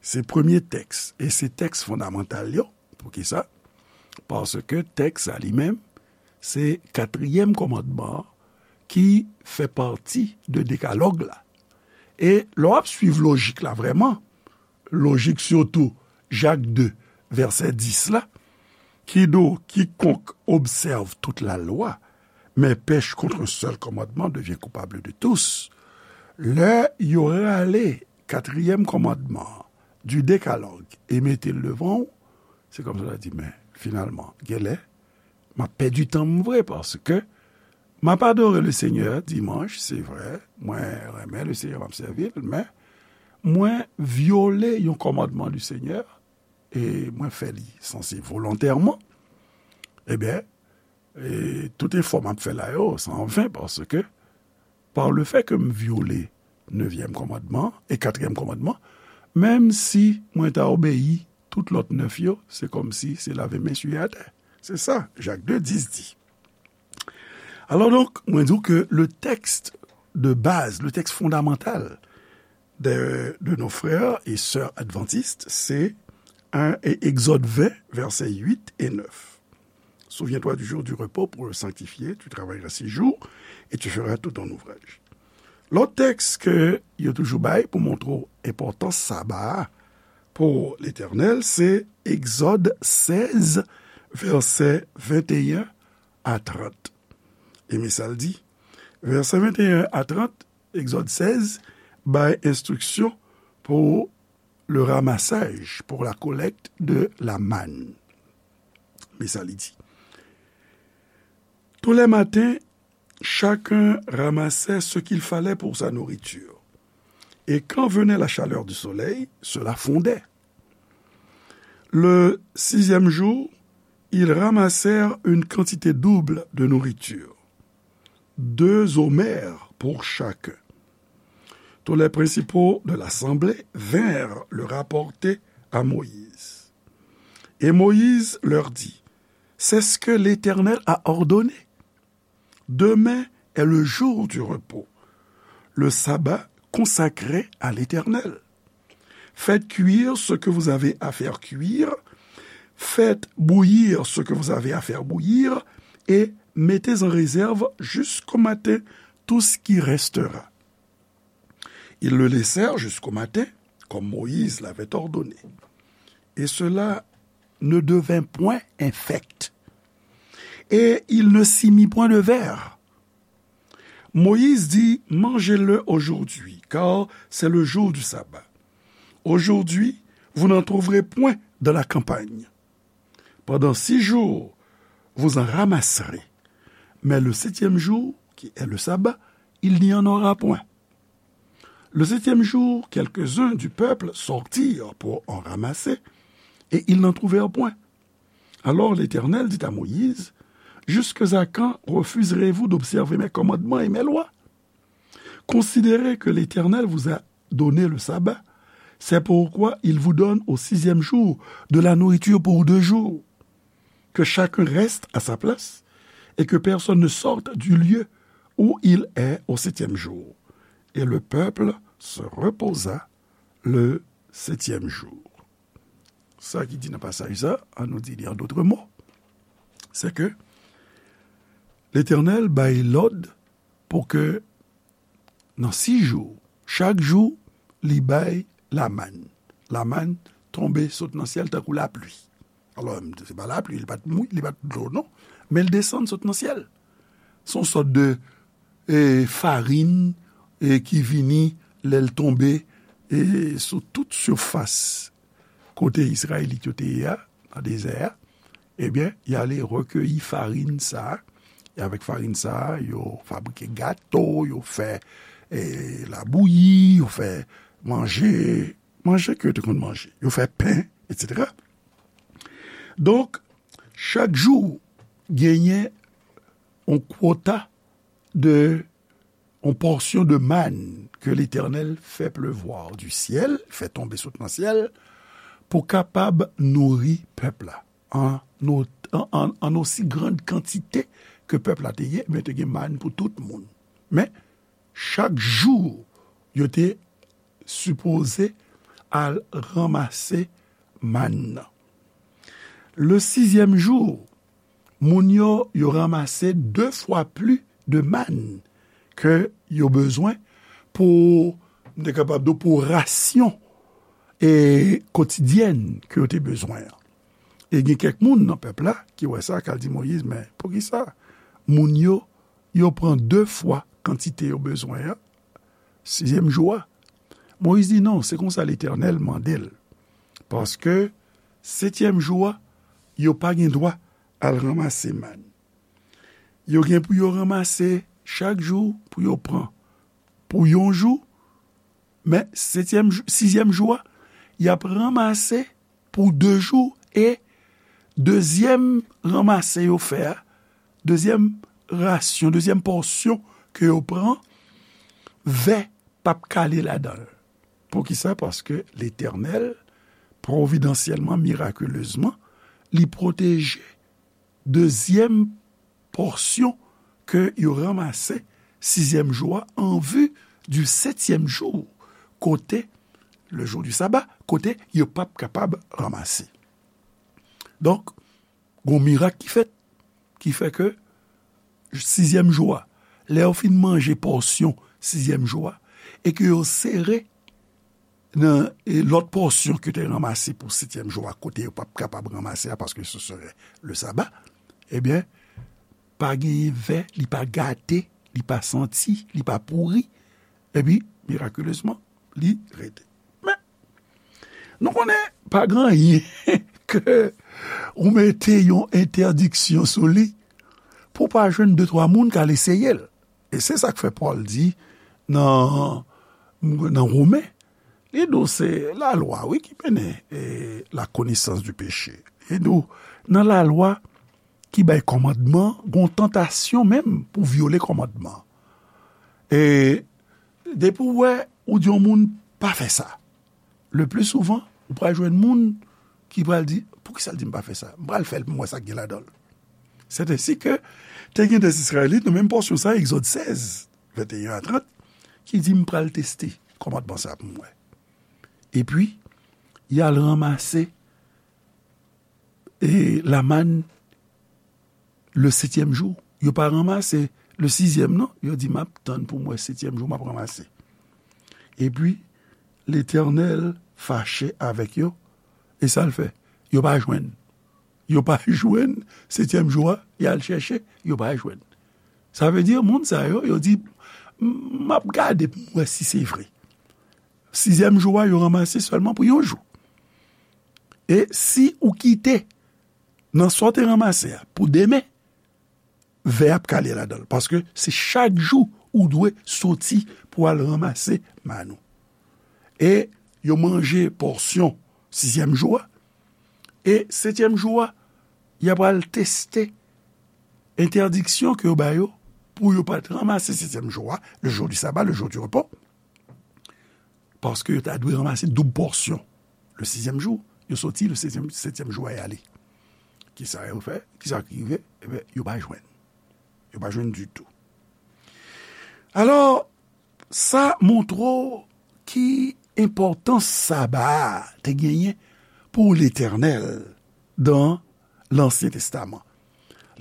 Se premye tèks, e se tèks fondamantal yo. Poukisa? Paske tèks sa li menm, se katriyèm kòmandman an ki fè pati de dekalòg la. E lè w ap swiv lojik la vrèman, lojik sitou Jak de, vèsè dis la, ki di w, Quiconque observe toute la loi, mais pèche contre un seul commandement devient coupable de tous. Lè yo rale katriyèm kòmandman an, du décalogue, e mete l devan w, se kòmsi w ta di, men, finalman, genlè, m ap pèdi tan m vre, paske m ap adore le Seigneur dimanch, se vre, mwen renmen le Seigneur, m ap sèvi l, men mwen vyole yon kòmandman du Seigneur, e mwen fè li sanse volontèman, ebyen, e tout efò m ap fè la yo, se anven, paske par le fait que m vyole nevyèm kòmandman e katriyèm kòmandman, menm si mwen ta obeyi tout lòt nèf yo, se kòmsi se lave men siye atè. Se sa, Jak de dis di. Alò donk, mwen di w ke le texte de base, le texte fondamental de, de nos frères et sœurs adventistes, c'est un, Exode vingt, versets huit et neuf. Souviens-toi du jour du repos pour le sanctifier, tu travailleras six jours et tu feras tout ton ouvrage. Lòt tèks ke yo toujou bay pou montre w enpòtans saba a pou Letènèl, se Egzòd sèz, vèsè venteyen a trant. E men sa l di, vèsè venteyen a trant, Egzòd sèz, bay enstriksyon pou le ramassage, pour la collecte de la manne. Men sa li di. Tous les matins, chacun ramassait ce qu'il fallait pour sa nourriture. Et quand venait la chaleur du soleil, cela fondait. Le sixième jour, ils ramassèrent une quantité double de nourriture, deux omers pour chacun. Tous les principaux de l'assemblée vinrent le rapporter à Moïse. Et Moïse leur dit, C'est ce que l'Éternel a ordonné. Demain est le jour du repos, le sabbat consacré à l'Éternel. Faites cuire ce que vous avez à faire cuire, faites bouillir ce que vous avez à faire bouillir, et mettez en réserve jusqu'au matin tout ce qui restera. Ils le laissèrent jusqu'au matin, comme Moïse l'avait ordonné. Et cela ne devint point infect. Et il ne s'y mit point de vers. Moïse dit, Mangez-le aujourd'hui, car c'est le jour du sabbat. Aujourd'hui, vous n'en trouverez point dans la campagne. Pendant six jours, vous en ramasserez. Mais le septième jour, qui est le sabbat, il n'y en aura point. Le septième jour, quelques-uns du peuple sortirent pour en ramasser, et ils n'en trouvèrent point. Alors l'Éternel dit à Moïse, Jusqu'à quand refuserez-vous d'observer mes commandements et mes lois ? Considérez que l'Éternel vous a donné le sabbat. C'est pourquoi il vous donne au sixième jour de la nourriture pour deux jours. Que chacun reste à sa place et que personne ne sorte du lieu où il est au septième jour. Et le peuple se reposa le septième jour. Sa ki di nan pasaj sa, an nou di li an dòt mo, se ke Letènèl bay lòd pou ke nan sis jou, chak jou, li bay lamann. Lamann tonbe sot nan syèl tankou lapli. Alò, se pa lapli, li pa t mou-, li pa t dlo, non. Men l desann sot nan syèl. Se yon sòt de, e, farin, e, ki vini lè l tonbe, e, sou tout sifas kote Izrayelit yo te ye a, nan dezè a. Ebyen, y ale rekeyi farin sa a. E avèk farin sa a, yo fabrike gato, yo fè, e, labouyi, yo fè manje, manje ke yo te konn manje. Yo fè pen, etsetera. Donk, chak jou, genyen yon kwota de, yon pòsyon de mann ke Letènèl fè plevwa di syèl, fè tonbe sot nan syèl, pou kapab nouri pèp la an, an, an, an osi grann kantite ke pèp la te ye, men te gen mann pou tout moun. Men, chak jou, yo te sipoze al ranmase mann nan. Le sizyèm jou, moun yo, yo ranmase de fwa pli de mann ke yo bezwen pou, m te kapab di w, pou rasyon, e, kotidyèn ke yo te bezwen an. E gen kèk moun nan pèp la ki wè sa, k al di Moyiz, "Men poukisa moun yo, yo pran de fwa kantite yo bezwen an, sizyèm jou a?" Moyiz di, "Non, se konsa Letènèl mande l. Paske setyèm jou a, yo pa gen dwa al ranmase mann. Yo gen pou yo ranmase chak jou pou yo pran pou yon jou, men setyèm jou, sizyèm jou a, y ap ranmase pou de jou, e dezyèm ranmase yo fè a, dezyèm rasyon, dezyèm pòsyon ke yo pran, vè p ap kale ladan l." Poukisa? Paske Letènèl, pwovidansyèlman, mirakilezman, li pwoteje dezyèm pòsyon ke yo ranmase sizyèm jou a, an vi di setyèm jou, kote, le jour du sabbat, kote yo p ap kapab ranmase. Donk, gon mirak ki fèt, ki fè ke sizyèm jou a, lè yo fin manje pòsyon sizyèm jou a, e ke yo sere nan, e, lòt pòsyon ke te ranmase pou setyèm jou a, kote yo p ap kapab ranmase a, paske se serait le sabbat, ebyen, pa genyen vè, li pa gate, li pa santi, li pa pouri, epi, mirakilezman, li rete. Men, nou konnen pa gen anyen ke ou mete yon entèdiksyon sou li pou pa jwenn de twa moun k al eseye l. E se sa k fè Pòl di nan, nan Women, li di w se lalwa, wi, ki mennen, e, la connaissance du péché. Li di w, nan lalwa ki bay kòmandman, gon tantasyon menm pou vyole kòmandman. E depi w wè, ou di yon moun, "Pa fè sa." Le pli souvan, ou pral jwenn moun ki pral di, "Poukisa l di m pa fè sa? M pral fè l pou m wè sa k gen ladan l." C'est ainsi que te gen de Izrayelit, nan menm pòsyon sa, Egzòd sèz, venteyen a trant, ki di, "M pral teste kòmandman sa pou m wè." Epi, y al ranmase, e, lamann le setyèm jou. Yo pa ranmase le sizyèm, non. Yo di, "M ap tann pou m wè setyèm jou, m ap ranmase." Epi, Letènèl fache avèk yo, e sa l fè? Yo pa jwenn. Yo pa jwenn, setyèm jou a, y al chèche, yo pa jwenn. Sa vle di, moun sa yo, yo di, "M ap gade pou m wè si se vre." Sizyèm jou a, yo ranmase sèlman pou yon jou. E si ou kite nan sa w te ranmase a pou demen, vè ap kale ladan l. Paske se chak jou ou dwe soti pou al ranmase mann ou. E yo manje pòsyon sizyèm jou a. E setyèm jou a, y ap al teste entèdiksyon ke yo ba yo pou yo pa t ranmase setyèm jou a, le jour du sabbat, le jour du repos, paske yo ta dwe ranmase doub pòsyon le sizyèm jou, yo soti le setyèm, setyèm jou a y ale. Kisa yo fè? Kisa ki rive? Ebyen, yo pa jwenn. Yo pa jwenn ditou. Alò, sa montre w ki enpòtans saba a te genyen pou Letènèl dan Lansyen Testaman.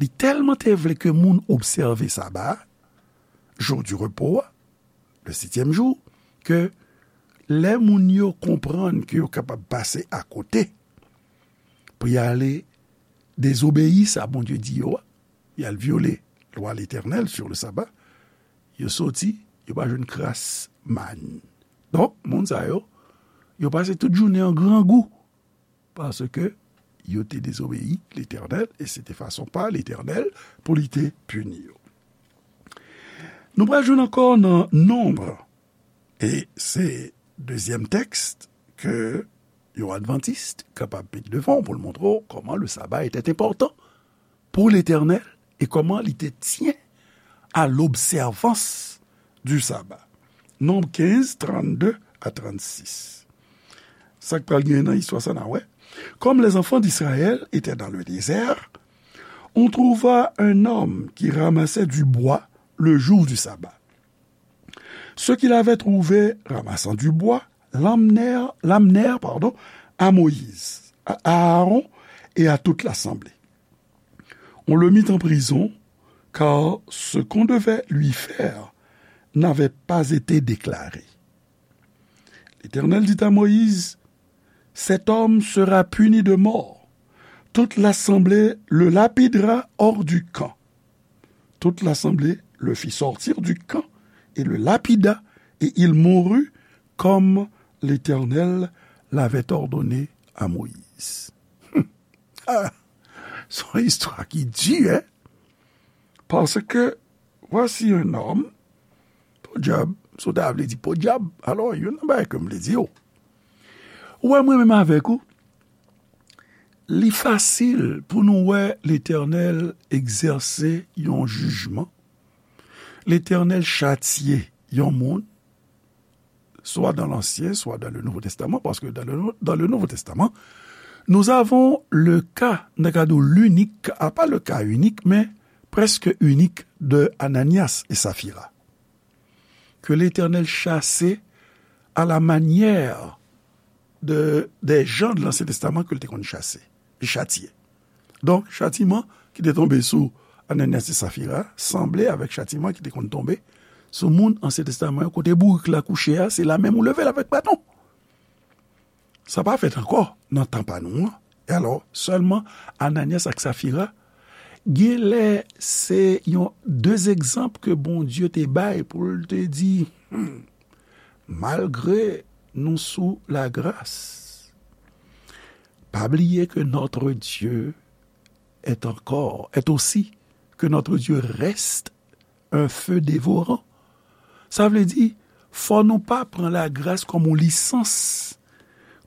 Li tèlman te vle ke moun obsève saba a, jou di repo a, le setyèm jou, ke lè moun yo konprann ke yo kapab pase akote pou y ale dezobeyi sa Bondye di yo a, y al vyole lwa Letènèl sur le sabbat, yo soti, yo pa jwenn kras màn. Donk, moun sa yo, yo pase tout jounen an grangou, paske yo te dezobeyi Letènèl, e se te fason pa Letènèl pou li te pini yo. Nou pral jwenn ankò nan Nonb, e se dezyèm tèks ke yon advantis kapab met devan w pou l montre w kòman le sabbat était important pour l'Éternel et comment il te tient à l'observance du sabbat. Nonb kenz, trannde a trannsis. Sa k pral gen nan istwa sa n a wè. Comme les enfants d'Israël étaient dans le désert, on trouva un homme qui ramassait du bois le jour du sabbat. Ceux qui l'avaient trouvé ramassant du bois l'amenèrent, l'amenèrent, pardon, à Moïse, à Aaron et à toute l'assemblée. On le mit en prison, car ce qu'on devait lui faire n'avait pas été déclaré. L'Éternel dit à Moïse, cet homme sera puni de mort. Toute l'assemblée le lapidera hors du camp. Toute l'assemblée le fit sortir du camp et le lapida, et il mourut comme l'Éternel l'avait ordonné à Moïse. Ah, se yon istwa ki di, hein? Paske, voici un homme, podyab, si w ta vle di podyab, alò, youn nan bagay ke m vle di w. Ou wè, mwen menm avèk ou, li fasil pou nou wè Letènèl egzèse yon jijman. Letènèl chatye yon moun, soit dans l'Ancien, soit dans le Nouveau Testament, parce que dans le, dans le Nouveau Testament, nous avons le cas, n ta ka di w l'unique, a pa le cas unique, men prèske inik de Ananias et Saphira, que l'Éternel chassait à la manière de, des gens de l'Ancien Testament ke l te konn chase, li chatye. Donk, chatiman ki te tonbe sou Ananias e Safira sanble avèk chatiman ki te konn tonbe sou moun Ansyen Testaman yo, kote bourik la kouche a, se la menm ou leve l avèk baton. Sa pa fèt ankò nan tan pa nou an. E alò, sèlman Ananyas ak Safira, genlè se yon de egzanp ke Bondye te bay pou l te di, hmm, malgre nou sou lagras, pa bliye ke notre Dieu est encore, est aussi, que notre Dieu reste un feu dévorant. Sa vle di, fò nou pa pran lagras kòm yon lisans,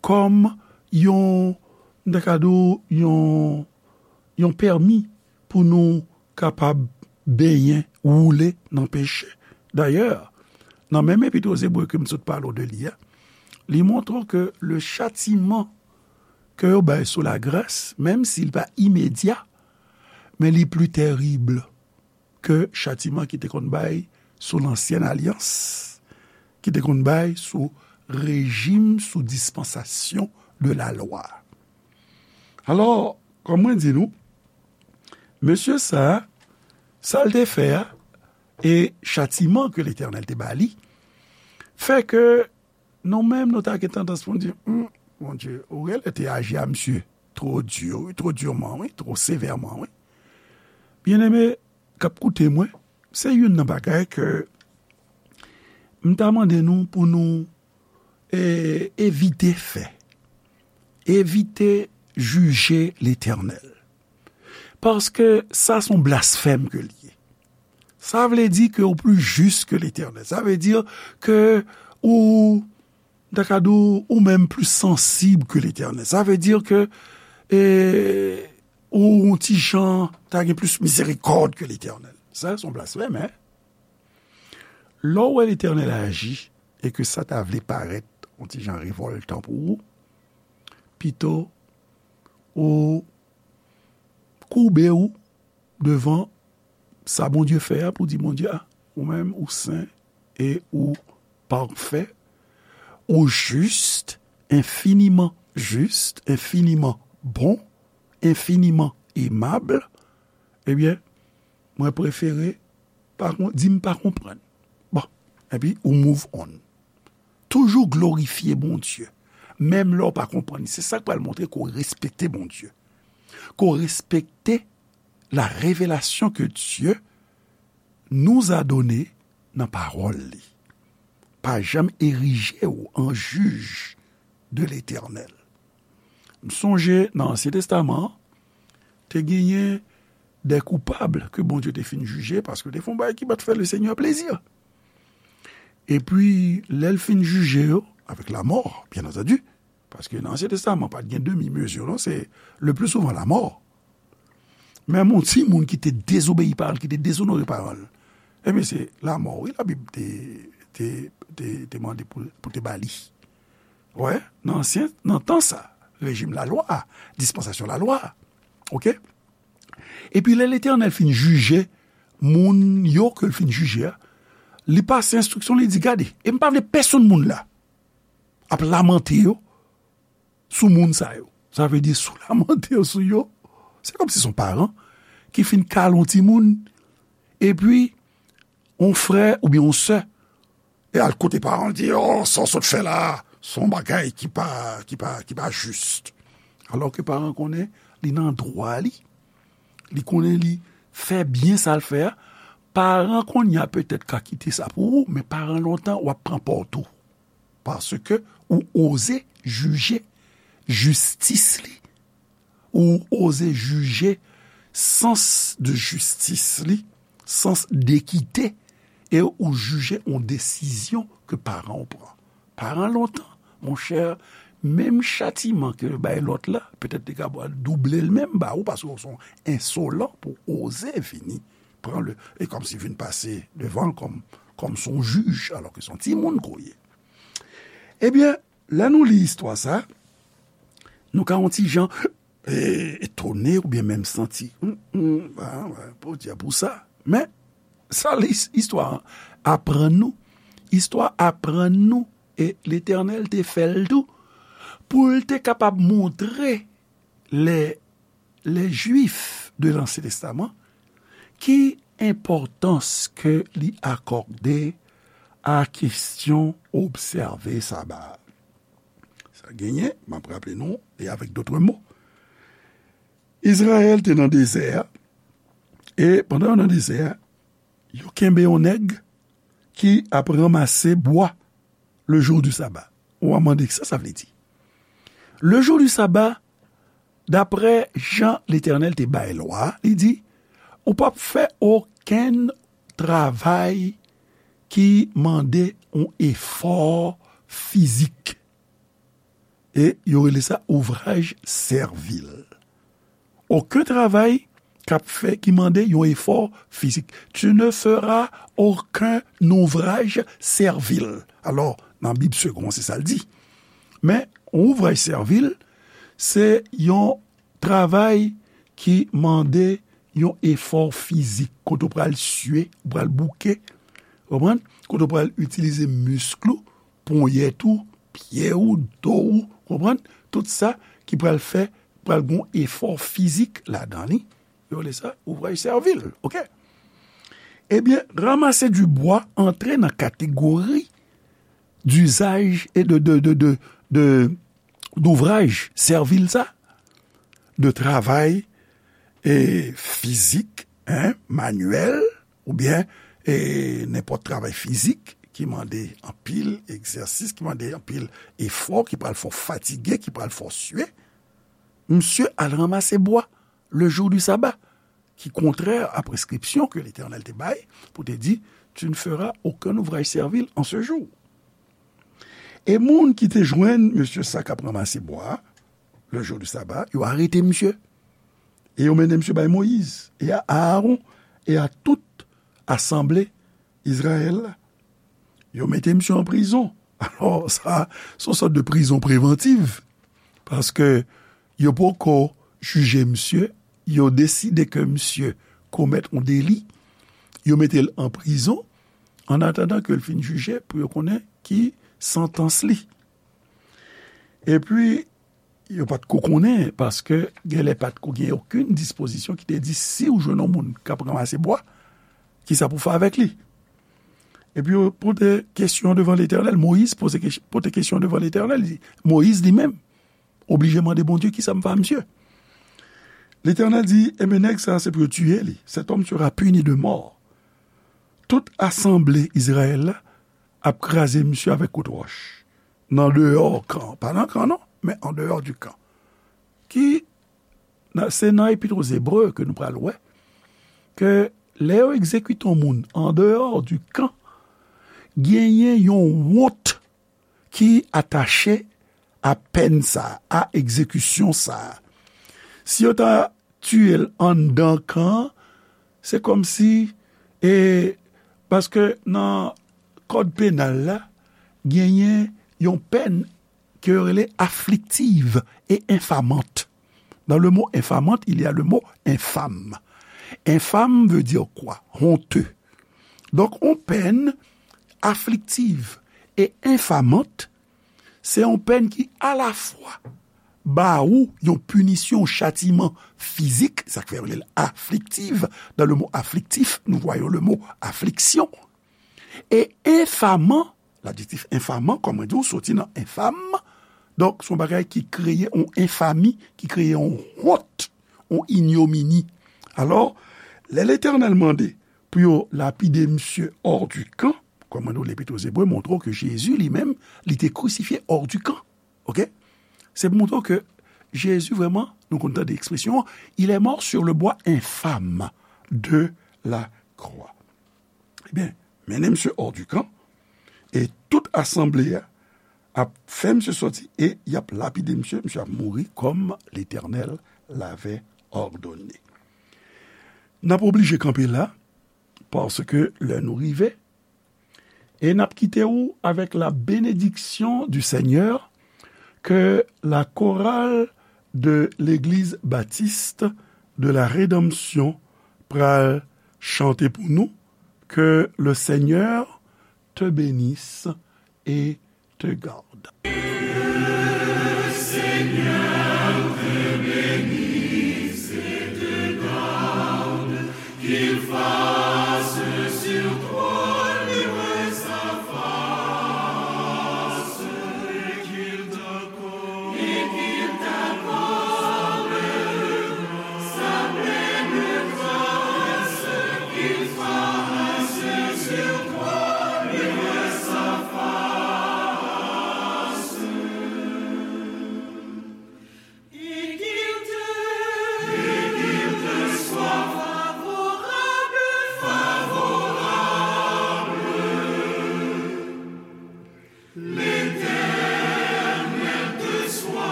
kòm yon, m ta ka di w, yon, yon pèmi pou nou kapab benyen, woule nan peche. Dayè, nan menm Epit o Zebre ke m sot pale w de li a, li montre w ke le châtiment ke yo bay sou lagras, menm si l pa imedya, men li pli tèrib ke chatiman ki te konn bay sou Lansyèn Alyans, ki te konn bay sou rejim, sou dispansasyon de lalwa. Alò, kòm mwen di nou, mesye sa a, sa l te fè a, e chatiman ke Letènèl te ba li, fè ke nou menm, nou ta gen tandans pou n di, hmm, Bondye, ou genlè te aji a misye two di, wi, two diman, wi, two sevèman, wi. Byeneme k ap koute mwen, se youn nan bagay ke m ta mande nou pou nou, e, evite fè. Evite jije Letènèl. Paske sa se yon blasfèm ke l ye. Sa vle di ke ou pli jis ke Letènèl. Sa vle di ke ou, m ta ka di w, ou menm pli sansib ke Letènèl. Sa vle di ke, e, ou yon ti jan ta gen plis mizerikòd ke Letènèl. Sa, se yon blasfèm, en. Lè w wè Letènèl aji e ke sa ta vle parèt yon ti jan revòltan pou ou, pito ou koube w devan sa Bondye fè a pou di Bondye, a, ou menm, ou sen e ou pafè, ou jis, enfiniman jis, enfiniman bon, enfiniman emab, ebyen, mwen prefere pa kon-, di m pa konprann. Bon, epi ou move on. Toujou glorifye Bondye, menm lè w pa konprann. Se sa k pral montre ke w respekte Bondye, ke w respekte la révélation que Dieu nous a donnée nan pawòl li. Pa janm erije w an jij de Letènèl. M sonje nan Ansyen Testaman an, te genyen de koupab ke Bondye te fin jije, paske te fè yon bagay ki pa t fè Lesenyè plezi. Epi, lè l fin jije yo, avèk lamò, byen antandi, paske nan Ansyen Testaman, pa t gen demi mezi, non, se le pli souvan lamò. Menm yon timoun ki te dezobeyi pawòl, ki te dezonore pawòl, ebyen, se lamò, wi, Labib te, te, te, te mande pou, pou te ba li. Wè, nan ansyen, nan tan sa, rejim lalwa a, dispansasyon lalwa a. Oke? Epi lè Letènèl fin jije moun yo ke l fin jije a, li pase enstriksyon, li di, gade, e m pa vle pèsonn moun la ap lamante yo sou moun sa yo. Sa vle di, si w lamante yo sou yo, se kòmsi se yon paran ki fin kale yon timoun, epi yon frè oubyen yon sè e al kote paran l, di, o, sa w sot fè la a, se yon bagay ki pa, ki pa, ki pa jis. Alò ke paran konnen li nan dwa li, li konnen li fè byen sa l fè a. Paran kounye a petèt ka kite sa pou ou, men paran lontan w ap pran pòt ou. Paske ou oze jije jistis li, ou oze jije sans de jistis li, sans dekite, e ou jije yon desizyon ke paran w pran. Paran lontan, monchè, menm chatiman ke yo bay lòt la, petèt li ka double l menm ba ou, paske w se yon ensolan pou w oze vini pran le, e kòmsi vin pase devan l kòm, kòm se yon jij, alò ke se yon timoun ke w ye. Ebyen, lè nou li istwa sa, nou ka yon ti jan, e, etone oubyen menm santi, hmm, hmm, a, wè, podyab pou sa. Men, sa li, istwa an aprann nou, istwa aprann nou, e Letènèl te fè l tou, pou l te kapab montre lè les Juifs de l'Ancien Testament, ki enpòtans ke li akòde a kesyon obsève Saba a? Sa genyen, m ap raple nou, e avèk dòt mo, Izrayèl te nan dezè a, e pandan yo nan dezè a, yo kenbe yon nèg ki ap ranmase bwa le jour du sabbat. Ou a mande, sa sa vle di? Le jour du sabbat, daprè jan Letènèl te bay lwa, li di, ou p ap fè okenn travay ki mande yon efò fizik. E yo rele sa ouvraj sèvil. Okenn travay k ap fè, ki mande yon efò fizik. Tu ne feras aucun ouvrage servile. Alò, nan Bib Segond, se sa l di. Men, yon ouvraj sèvil, se yon travay ki mande yon efò fizik, kote w pral sye, w pral bouke, konprann? Kote w pral itilize misk ou, ponyèt ou, pye ou, do ou, konprann? Tout sa ki pral fè, pral gon efò fizik ladan li. Yo rele sa ouvraj sèvil, oke? Ebyen, ramasser du bois antre nan kategori d'usage et de, de, de, de, de, d'ouvraj sèvil sa, de travay, e, fizik, en, manyèl, oubyen, e, nenpòt travay fizik ki mande anpil egzèsis, ki mande anpil efò, ki pral fè w fatige, ki pral fè w swe. Misye al ranmase bwa le jour du sabbat, ki kontrè a preskripsyon ke Letènèl te bay pou te di, tu ne feras aucun ouvrage servile en ce jour. E moun ki te jwenn mesye sa k ap ranmase bwa a, le jour du sabbat, yo arete misye. E yo mennen misye bay Moyiz, e a Aaron, e a tout asanble Izrayèl la. Yo mete misye an prizon. Alò, sa, se yon sòt de prizon prevantiv. Paske yo poko jije misye, yo deside ke misye komèt yon deli, yo mete l an prizon, an atandan ke l fin jije, pou yo konnen ki santans li. Epi, yo pa t ko konnen, paske genlè pa t ko gen okenn dispozisyon ki te di si w jwenn yon moun k ap ranmase bwa, kisa pou fè avèk li. Epi yo pote kesyon devan Letènèl. Moyiz poze kes-, pote kesyon devan Letènèl. Li, Moyiz li menm oblije mande Bondye kisa m fè a misye. Letènèl di, ebyen, nèg sa, se pou yo tiye li. Cet homme sera puni de mort. Tout asanble Izrayèl la ap kraze misye avèk kout wòch. Nan deyò kan. Pa nan kan, non, men an deyò di kan. Ki, nan, se nan Epit o Zebre ke nou pral wè ke lè yo egzekite yon moun an deyò di kan, genyen yon wont ki atache a pèn sa a, a egzekisyon sa a. Si yo ta tiye l anndan kan an, se kòmsi, e, paske nan kòd penal la, genyen yon pèn ke yo rele afflictive et infamante. Dans le mot infamante, il y a le mot infâme. Infâme veut dire quoi? Honteux. Donk, yon pèn afflictive et infamante, se yon pèn ki alafwa ba ou yon pinisyon, yon chatiman fizik, sa k fè yo rele l afflictive. Dans le mot afflictif, nous voyons le mot affliction. E enfaman, ladjektif enfaman, kòm mwen di w, soti nan enfam. Donk, se yon bagay ki kreye yon enfami, ki kreye yon wont, yon inyomini. Alò, lè Letènèl mande pou yo lapide misye hors du camp, kòm mwen di w, Lepit o Zebre montre w ke Jezi li menm, li te krisifye hors du camp. Oke? Se pou montre w ke Jezi vrèman, nou konn tande ekspresyon an, il est mort sur le bois infâme de la croix. Ebyen, mennen misye hors du camp, e tout asanble a ap fè misye sòti, e y ap lapide misye, misye ap mouri kòm Letènèl l'avait ordonné. N ap oblije kanpe la, paske lè nou rive, e n ap kite w avec la bénédiction du Seigneur, ke la chorale de l'Église Baptiste de la Rédemption pral chante pou nou, que le Seigneur te bénisse et te garde.